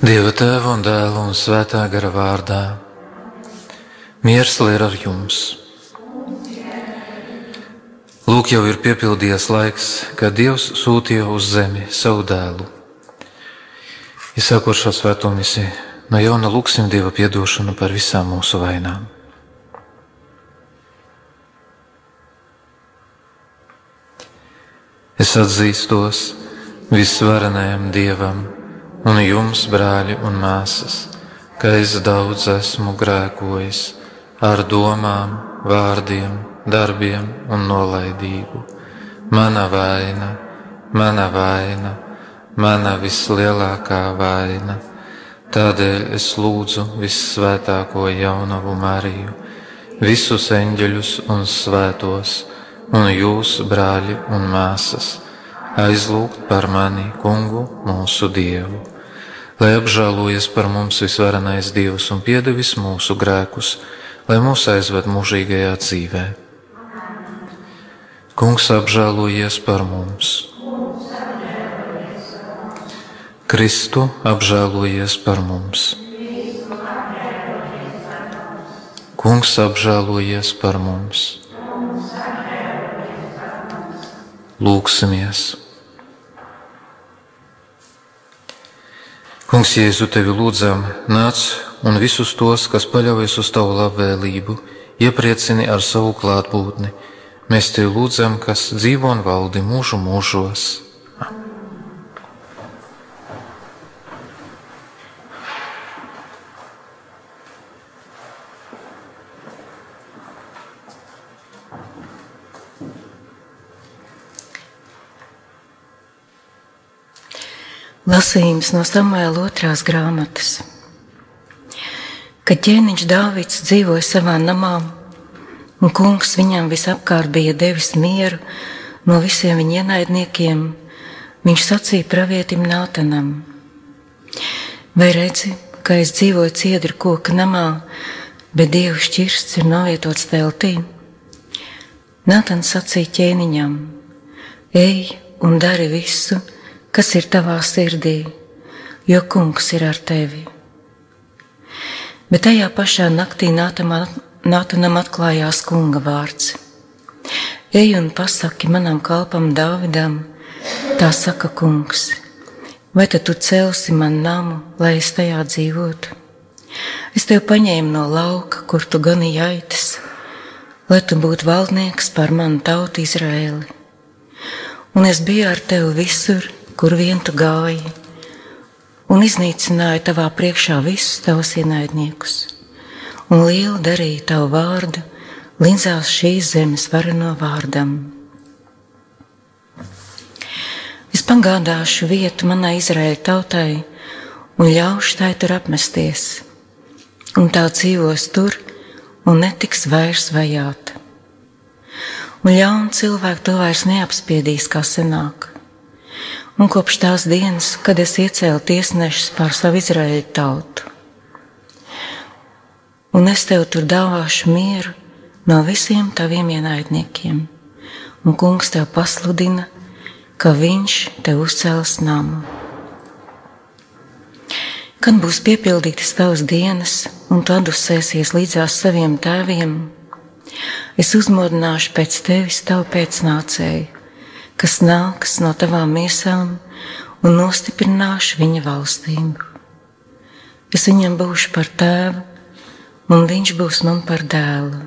Dieva Tēva un Dēla un Svētā gara vārdā. Miers lai ir ar jums. Lūk, jau ir piepildījies laiks, kad Dievs sūtīja uz zemi savu dēlu. Iesākot šo svēto misiju, no jauna lūksim Dieva piedošanu par visām mūsu vainām. Es atzīstos visvarenajam Dievam un jums, brāļi un māsas, ka es daudz esmu grēkojis ar domām, vārdiem, darbiem un nolaidību. Mana vaina, mana vislielākā vaina. Tādēļ es lūdzu vissvētāko jaunavu Mariju, visus eņģeļus un svētos, un jūs, brāļi un māsas, aizlūgt par mani, Kungu, mūsu Dievu, lai apžēlojies par mums visvarenais Dievs un piedevis mūsu grēkus, lai mūs aizved mūžīgajā dzīvē. Kungs, apžēlojies par mums. Kristu, apžēlojies par mums. Kungs, apžēlojies par mums. Lūksimies. Kungs, Jēzu, tevi lūdzam, nāc un visus tos, kas paļaujas uz tavu labvēlību, iepriecini ar savu klātbūtni. Mēs tevi lūdzam, kas dzīvo un valdi mūžu mūžos. Lasījums no Samuēla 2. grāmatas. Kad ķēniņš Dāvids dzīvoja savā namā, un kungs viņam visapkārt bija devis mieru no visiem viņa ienaidniekiem, viņš sacīja pravietim Nātanam: vai redzi, ka es dzīvoju ciedru koka namā, bet Dieva šķirsts ir novietots teltī? Nātans sacīja ķēniņam: ej un dari visu, kas ir tavā sirdī, jo kungs ir ar tevi. Bet tajā pašā naktī Nātanam atklājās kunga vārds: ej un pasaki manam kalpam Dāvidam, tā saka kungs, vai tad tu celsi man namu, lai es tajā dzīvotu? Es tev paņēmu no lauka, kur tu ganīji aitas, lai tu būtu valdnieks pār manu tautu Izraēli. Un es biju ar tevi visur, kur vien tu gāji, un iznīcināja tavā priekšā visus tavus ienaidniekus, un lielu darīja tavu vārdu līdzās šīs zemes vareno vārdam. Es pagādāšu vietu manai Izraēļa tautai un ļaušu tai tur apmesties, un tā dzīvos tur un netiks vairs vajāta. Un ļauni cilvēki to vairs neapspiedīs kā senāk. Un kopš tās dienas, kad es iecēlu tiesnešus pār savu Izraēļa tautu. Un es tev tur dāvāšu mieru no visiem taviem ienaidniekiem, un kungs tev pasludina, ka viņš tev uzcels namu. Kad būs piepildītas tavas dienas, un tu atdusēsies līdzās saviem tēviem, es uzmodināšu pēc tevis tavu pēcnācēju, kas nāks no tavām miesām, un nostiprināšu viņa valstību. Es viņam būšu par tēvu, un viņš būs man par dēlu.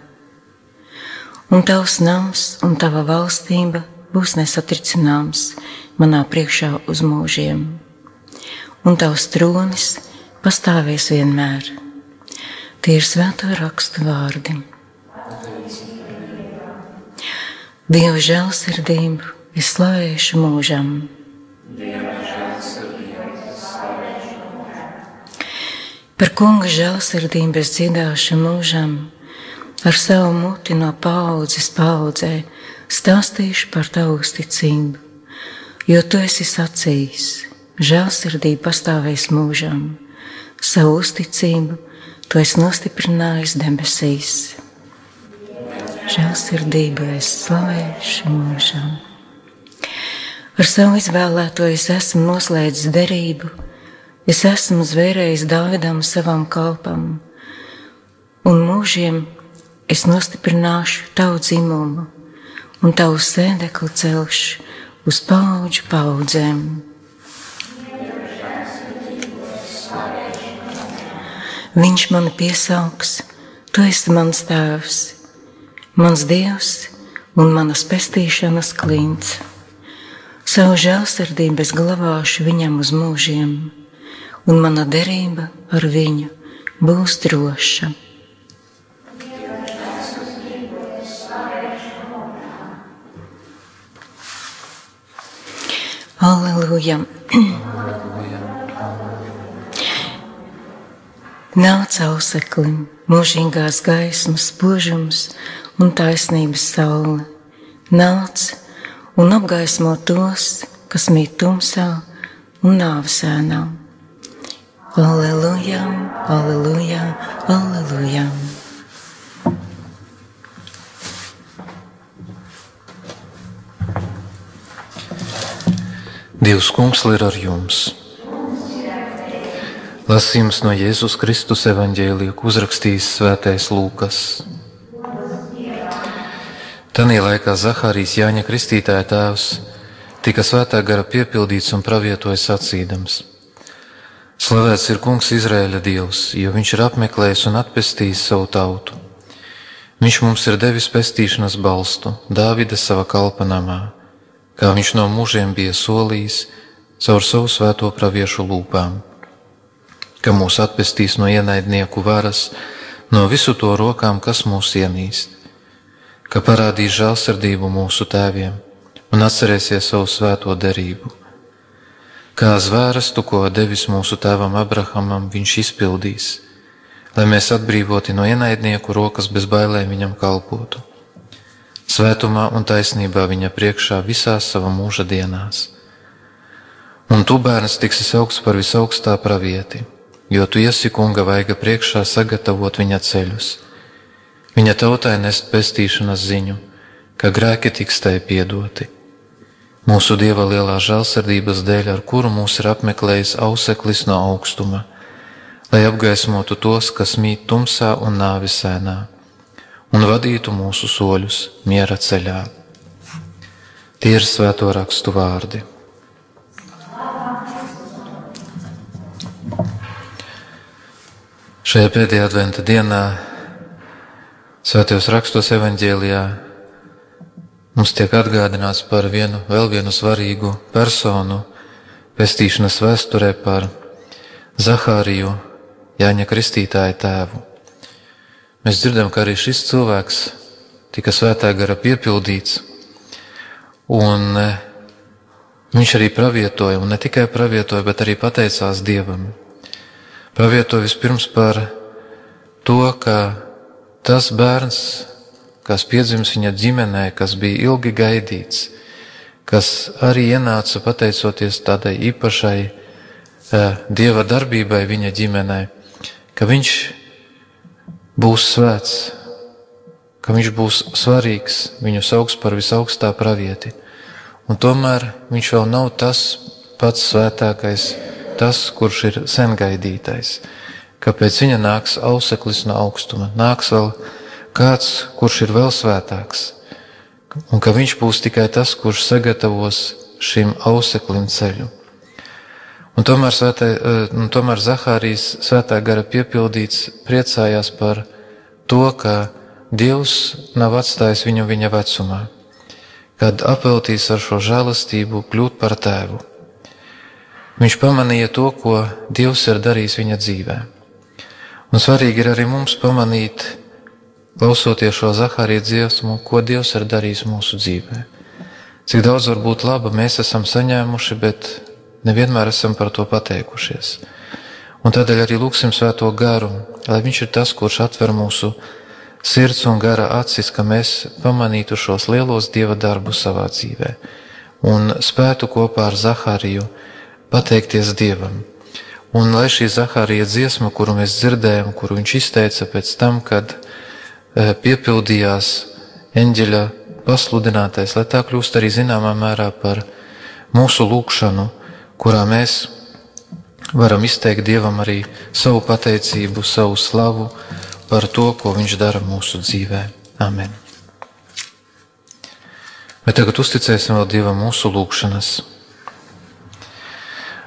Un tavs nams un tava valstība būs nesatricināms manā priekšā uz mūžiem. Un tavs tronis pastāvēs vienmēr. Tie ir svēto rakstu vārdi. Dieva žēlsirdību es slavēšu mūžam. Par kunga žēlsirdību es dziedāšu mūžam, ar savu muti no paaudzes paaudzē stāstīšu par tavu uzticību, jo tu esi sacījis, žēlsirdība pastāvēs mūžam, savu uzticību tu esi nostiprinājis debesīs. Žēlsirdību es slavēšu mūžam. Ar savu izvēlēto es esmu noslēdzis derību, es esmu zvērējis Dāvidam savam kalpam, un mūžiem es nostiprināšu tavu dzimumu, un tavu sēdekli celšu uz paudžu paudzēm. Viņš mani piesauks, tu esi mans tēvs, mans Dievs un manas pestīšanas klints. Savu žēlsirdību es glabāšu viņam uz mūžiem, un mana derība ar viņu būs droša. Alleluja! Nāc auseklim, mūžīgās gaismas spožums un taisnības saule. Nāc un apgaismo tos, kas mīt tumsā un nāves ēnā. Alleluja, alleluja, alleluja. Dievs kungs ir ar jums. Lasījums no Jēzus Kristus evaņģēlija, ko uzrakstījis svētais Lūkas. Tanī laikā Zahārijas, Jāņa Kristītāja tēvs, tika svētā gara piepildīts un pravietoja sacīdams: Slavēts ir kungs Izraēļa Dievs, jo viņš ir apmeklējis un atpestījis savu tautu. Viņš mums ir devis pestīšanas balstu Dāvida sava kalpa namā, kā viņš no mūžiem bija solījis caur savu svēto praviešu lūpām, ka mūs atpestīs no ienaidnieku varas, no visu to rokām, kas mūs ienīst, ka parādīs žēlsirdību mūsu tēviem un atcerēsies savu svēto derību. Kā zvērestu, ko devis mūsu tēvam Abrahamam, viņš izpildīs, lai mēs atbrīvoti no ienaidnieku rokas bez bailēm viņam kalpotu. Svētumā un taisnībā viņa priekšā visās sava mūža dienās. Un tu, bērns, tiksi saukts par visaugstā pravieti, jo tu esi kunga vaiga priekšā sagatavot viņa ceļus. Viņa tautai nest pestīšanas ziņu, ka grēki tiks tai piedoti. Mūsu Dieva lielā žēlsirdības dēļ, ar kuru mūs ir apmeklējis auseklis no augstuma, lai apgaismotu tos, kas mīt tumsā un nāves ēnā, un vadītu mūsu soļus miera ceļā. Tie ir svēto rakstu vārdi. Šajā pēdējā adventa dienā svētajos rakstos evaņģēlijā mums tiek atgādināts par vēl vienu svarīgu personu pestīšanas vēsturē, par Zahāriju, Jāņa Kristītāja tēvu. Mēs dzirdam, ka arī šis cilvēks tika svētā gara piepildīts, un viņš arī pravietoja, un ne tikai pravietoja, bet arī pateicās Dievam. Pravietoja vispirms par to, ka tas bērns, kas piedzims viņa ģimenē, kas bija ilgi gaidīts, kas arī ienāca pateicoties tādai īpašai Dieva darbībai viņa ģimenē, ka viņš būs svēts, ka viņš būs svarīgs, viņu sauks par visaugstā pravieti. Un tomēr viņš vēl nav tas pats svētākais, tas, kurš ir sen gaidītais, ka pēc viņa nāks auseklis no augstuma, nāks vēl kāds, kurš ir vēl svētāks, un ka viņš būs tikai tas, kurš sagatavos šim auseklim ceļu. Un tomēr Zahārijas svētā gara piepildīts priecājās par to, ka Dievs nav atstājis viņu viņa vecumā, kad apveltīs ar šo žēlastību kļūt par tēvu. Viņš pamanīja to, ko Dievs ir darījis viņa dzīvē. Un svarīgi ir arī mums pamanīt, klausoties šo Zahārija dziesmu, ko Dievs ir darījis mūsu dzīvē. Cik daudz var būt laba mēs esam saņēmuši, bet nevienmēr esam par to pateikušies. Un tādēļ arī lūksim svēto garu, lai viņš ir tas, kurš atver mūsu sirds un gara acis, ka mēs pamanītu šos lielos Dieva darbus savā dzīvē un spētu kopā ar Zahāriju pateikties Dievam. Un lai šī Zahārija dziesma, kuru mēs dzirdējam, kuru viņš izteica pēc tam, kad piepildījās eņģeļa pasludinātais, lai tā kļūst arī zināmā mērā par mūsu lūgšanu, kurā mēs varam izteikt Dievam arī savu pateicību, savu slavu par to, ko Viņš dara mūsu dzīvē. Amen. Bet tagad uzticēsim vēl Dievam mūsu lūgšanas.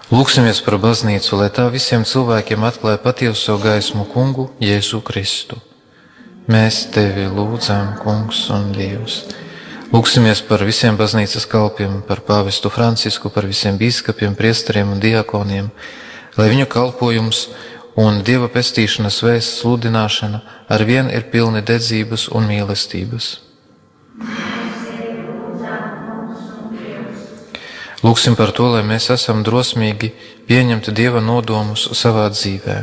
Lūksimies par baznīcu, lai tā visiem cilvēkiem atklāja patieso gaismu Kungu Jēzu Kristu. Mēs Tevi lūdzam, Kungs un Dievs. Lūksimies par visiem baznīcas kalpiem, par pāvestu Francisku, par visiem bīskapiem, priesteriem un diakoniem, lai viņu kalpojums un Dieva pestīšanas vēsts sludināšana arvien ir pilni dedzības un mīlestības. Lūksim par to, lai mēs esam drosmīgi pieņemt Dieva nodomus savā dzīvē.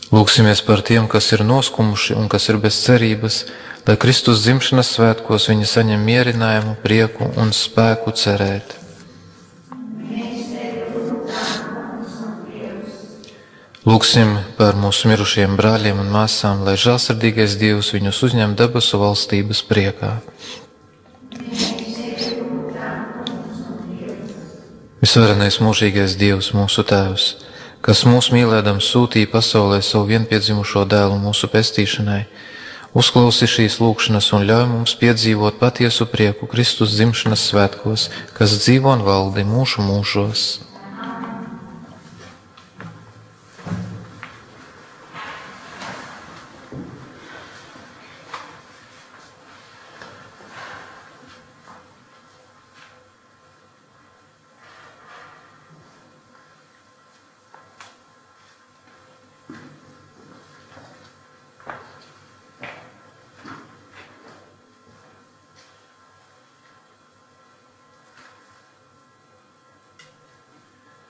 Lūksimies par tiem, kas ir noskumuši un kas ir bez cerības, lai Kristus dzimšanas svētkos viņi saņem mierinājumu, prieku un spēku cerēt. Lūksim par mūsu mirušiem brāļiem un māsām, lai žēlsirdīgais Dievs viņus uzņem debesu valstības priekā. Visvarenais mūžīgais Dievs, mūsu Tēvs, kas mūs mīlēdams sūtīja pasaulē savu vienpiedzimušo dēlu mūsu pestīšanai, uzklausi šīs lūgšanas un ļauj mums piedzīvot patiesu prieku Kristus dzimšanas svētkos, kas dzīvo un valdi mūžu mūžos.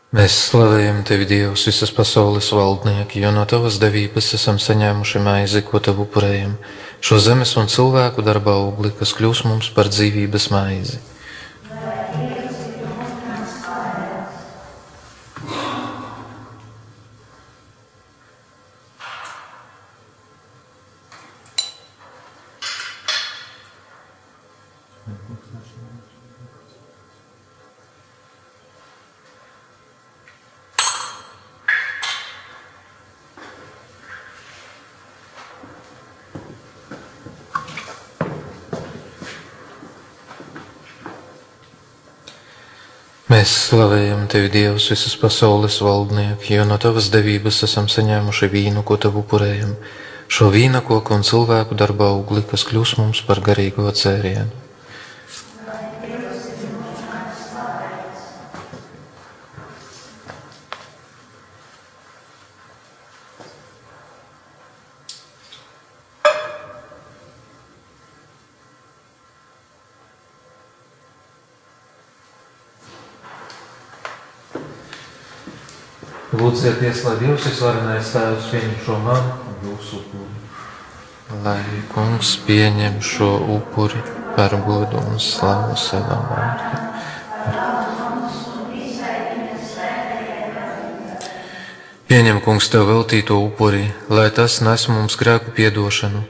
Mēs slavējam Tevi, Dievs, visas pasaules valdnieki, jo no Tavas devības esam saņēmuši maizi, ko Tev upurējam, šo zemes un cilvēku darba augli, kas kļūs mums par dzīvības maizi. Mēs slavējam Tevi, Dievs, visas pasaules valdnieki, jo no Tavas devības esam saņēmuši vīnu, ko Tev upurējam, šo vīnakoku un cilvēku darba augli, kas kļūs mums par garīgo dzērienu. Lūdzieties, lai Dievs visvarenais Tēvs pieņem šo manu un jūsu upuri. Lai Kungs pieņem šo upuri par godu un slavu savam vārdam. Pieņem, Kungs, Tev veltīto upuri, lai tas nes mums grēku piedošanu,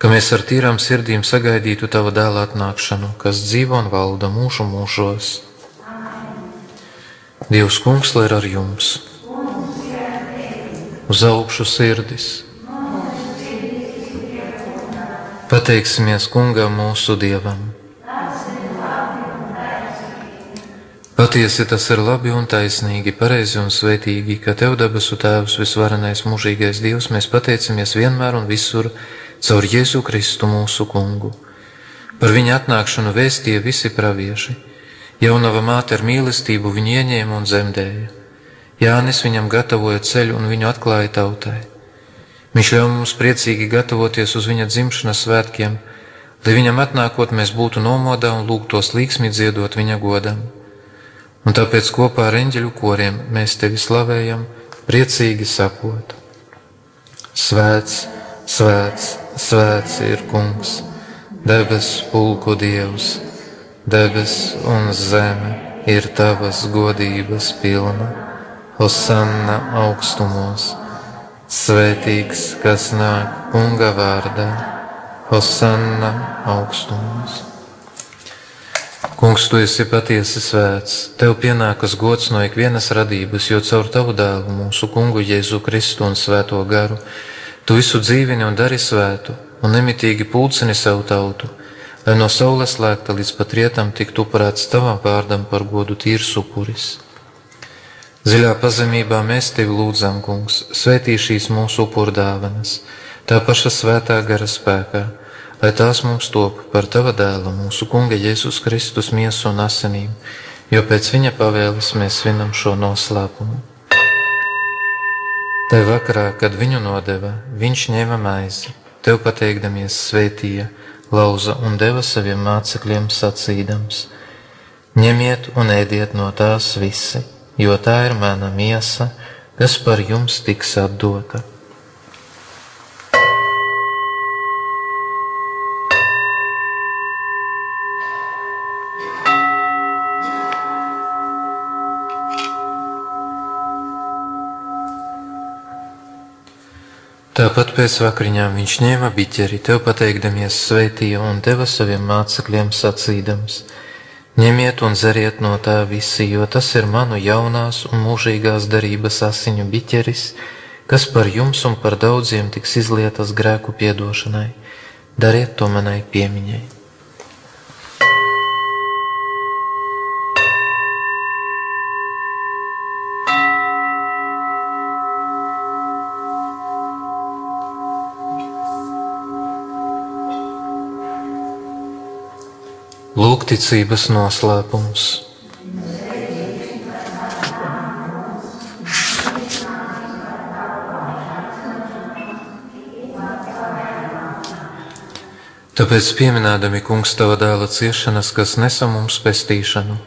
ka mēs ar tīrām sirdīm sagaidītu Tava dēla atnākšanu, kas dzīvo un valda mūžu mūžos. Dievs, Kungs, lai ir ar jums. Uz augšu sirdis. Pateiksimies Kungam mūsu Dievam. Patiesi tas ir labi un taisnīgi, pareizi un svētīgi, ka Tev, debesu Tēvs, visvarenais mūžīgais Dievs, mēs pateicamies vienmēr un visur caur Jēzu Kristu mūsu Kungu. Par viņa atnākšanu vēstīja visi pravieši. Jaunava māte ar mīlestību viņu ieņēma un dzemdēja. Jānis viņam gatavoja ceļu un viņu atklāja tautai. Viņš ļauj mums priecīgi gatavoties uz viņa dzimšanas svētkiem, lai viņam atnākot mēs būtu nomodā un lūgtos līgsmi dziedot viņa godam. Un tāpēc kopā ar eņģeļu koriem mēs Tevi slavējam, priecīgi sakot: Svēts, svēts, svēts ir Kungs, debes pulku Dievs, debes un zeme ir Tavas godības pilna. Hosanna augstumos, svētīgs, kas nāk Kunga vārdā, Hosanna augstumos. Kungs, tu esi patiesi svēts, tev pienākas gods no ikvienas radības, jo caur tavu dēlu, mūsu Kungu Jēzu Kristu un Svēto garu, tu visu dzīvini un dari svētu, un nemitīgi pulcini savu tautu, lai no saules lēkta līdz pat rietam tiktu upurēts tavam vārdam par godu tīrs upuris. Dziļā pazemībā mēs tevi lūdzam, Kungs, svētī šīs mūsu upurdāvanas, tā paša Svētā gara spēkā, lai tās mums top par tava dēla, mūsu Kunga Jēzus Kristus miesu un asinīm, jo pēc viņa pavēles mēs svinam šo noslēpumu. Tai vakarā, kad viņu nodeva, viņš ņēma maizi, tev pateikdamies svētīja, lauza un deva saviem mācekļiem sacīdams: ņemiet un ēdiet no tās visi, jo tā ir mana miesa, kas par jums tiks atdota. Tāpat pēc vakariņām viņš ņēma biķeri, tev pateikdamies svētīja un deva saviem mācekļiem sacīdams: ņemiet un dzeriet no tā visi, jo tas ir manu jaunās un mūžīgās darības asiņu biķeris, kas par jums un par daudziem tiks izlietas grēku piedošanai. Dariet to manai piemiņai. Lūgticības noslēpums. Tāpēc pieminēdami, Kungs, tava dēla ciešanas, kas nesa mums pestīšanu,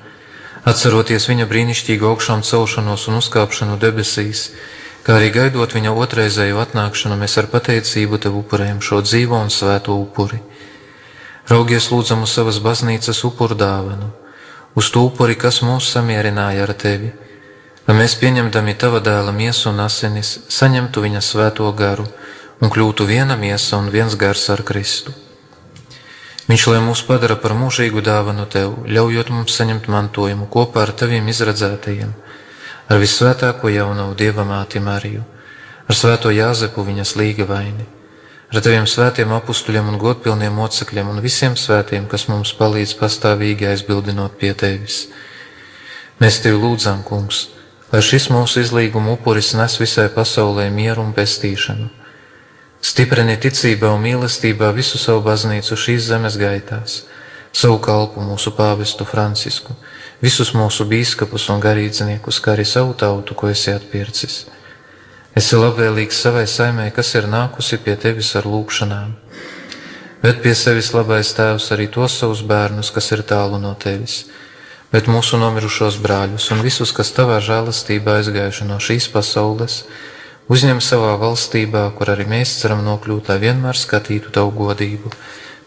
atceroties viņa brīnišķīgu augšām celšanos un uzkāpšanu debesīs, kā arī gaidot viņa otrreizēju atnākšanu, mēs ar pateicību tev upurējam šo dzīvo un svēto upuri. Raugies lūdzam uz savas baznīcas upuru dāvanu, uz to upuri, kas mūs samierināja ar tevi, lai mēs pieņemdami tava dēla miesu un asinis, saņemtu viņa svēto garu un kļūtu viena miesa un viens gars ar Kristu. Viņš, lai mūs padara par mūžīgu dāvanu tev, ļaujot mums saņemt mantojumu kopā ar taviem izredzētajiem, ar visvētāko jaunavu Dieva māti Mariju, ar svēto Jāzepu viņas līgavaini, ar taviem svētiem apustuļiem un godpilniem mocekļiem un visiem svētiem, kas mums palīdz pastāvīgi aizbildinot pie tevis. Mēs tevi lūdzam, Kungs, lai šis mūsu izlīguma upuris nes visai pasaulē mieru un pestīšanu. Stiprini ticībā un mīlestībā visu savu baznīcu šīs zemes gaitās, savu kalpu mūsu pāvestu Francisku, visus mūsu bīskapus un garīdzniekus, kā arī savu tautu, ko esi atpircis. Esi labvēlīgs savai saimē, kas ir nākusi pie tevis ar lūgšanām. Ved pie sevis labais Tēvs arī tos savus bērnus, kas ir tālu no tevis, bet mūsu nomirušos brāļus un visus, kas tavā žēlastībā aizgājuši no šīs pasaules, uzņem savā valstībā, kur arī mēs ceram nokļūt, lai vienmēr skatītu tavu godību,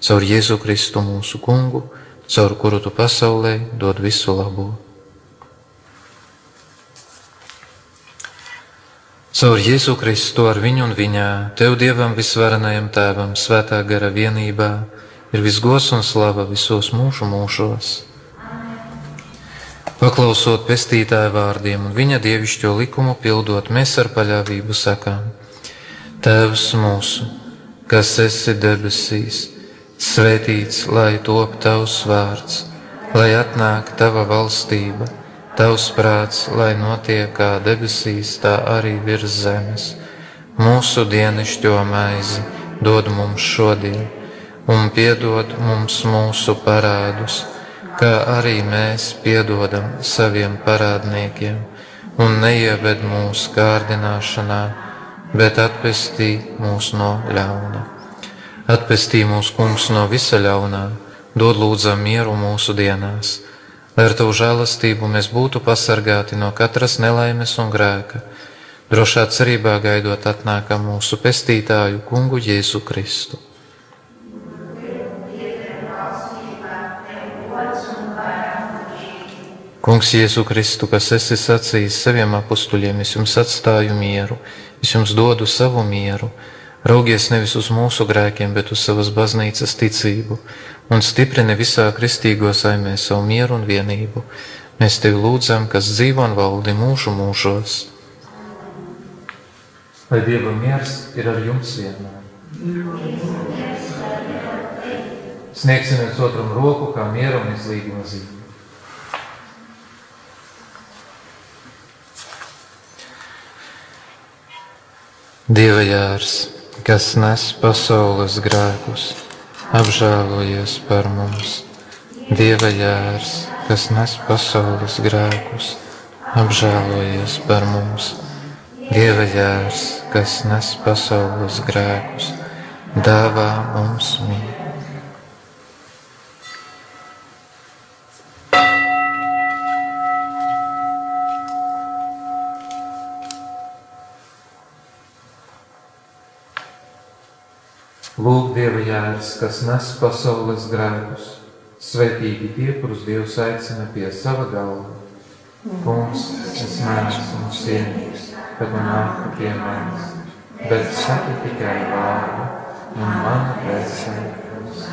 caur Jēzu Kristu mūsu Kungu, caur kuru tu pasaulē dod visu labo. Caur Jēzu Kristu ar viņu un viņā, tev Dievam visvarenajam Tēvam, svētā gara vienībā, ir visgods un slava visos mūžu mūžos. Paklausot pestītāja vārdiem un viņa dievišķo likumu pildot, mēs ar paļāvību sakām: Tēvs mūsu, kas esi debesīs, svētīts, lai top tavs vārds, lai atnāk tava valstība, tavs prāts, lai notiek kā debesīs, tā arī virs zemes. Mūsu dienascho maizi dod mums šodien, un piedod mums mūsu parādus, kā arī mēs piedodam saviem parādniekiem, un neieved mūsu kārdināšanā, bet atpestī mūs no ļauna. Atpestī mūs, Kungs, no visa ļaunā, dod lūdzam mieru mūsu dienās, lai ar tavu žēlastību mēs būtu pasargāti no katras nelaimes un grēka, drošā cerībā gaidot atnākam mūsu pestītāju Kungu Jēzu Kristu. Kungs Jēzu Kristu, kas esi sacījis saviem apustuļiem, es jums atstāju mieru, es jums dodu savu mieru, Raugies nevis uz mūsu grēkiem, bet uz savas baznīcas ticību un stiprini visā kristīgo saimē savu mieru un vienību. Mēs tevi lūdzam, kas dzīvo un valdi mūžu mūžos. Lai Dieva miers ir ar jums vienmēr. Sniegsim viens otram roku kā miera un izlīguma zīme. Dieva jērs, kas nes pasaules grēkus, apžēlojies par mums. Dieva jērs, kas nes pasaules grēkus, apžēlojies par mums. Dieva jērs, kas nes pasaules grēkus, dāvā mums mieru. Lūk, Dieva jērs, kas nes pasaules grēkus, svētīgi tie, kurus Dievs aicina pie sava galva. Kungs, es neesmu cienīgs, kad man nāk pie manis, bet saki tikai vārdu, un mana dvēsele būs.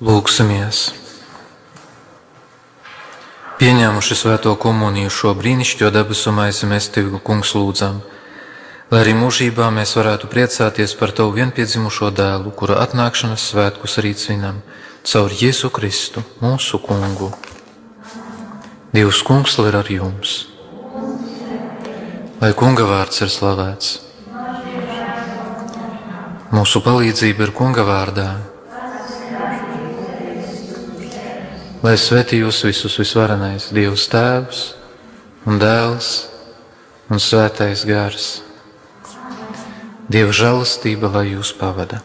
Lūksimies! Pieņēmuši svēto komuniju šo brīnišķīgo debesu maizi, mēs Tevi, Kungs, lūdzam, lai arī mūžībā mēs varētu priecāties par Tavu vienpiedzimušo dēlu, kura atnākšanas svētkus arī svinam, caur Jēzu Kristu, mūsu kungu. Dievs kungs, lai ir ar jums. Lai kunga vārds ir slavēts. Mūsu palīdzība ir kunga vārdā. Lai svētī jūs visus visvarenais Dievs Tēvs un Dēls un Svētais Gars. Dieva žēlastība, lai jūs pavada.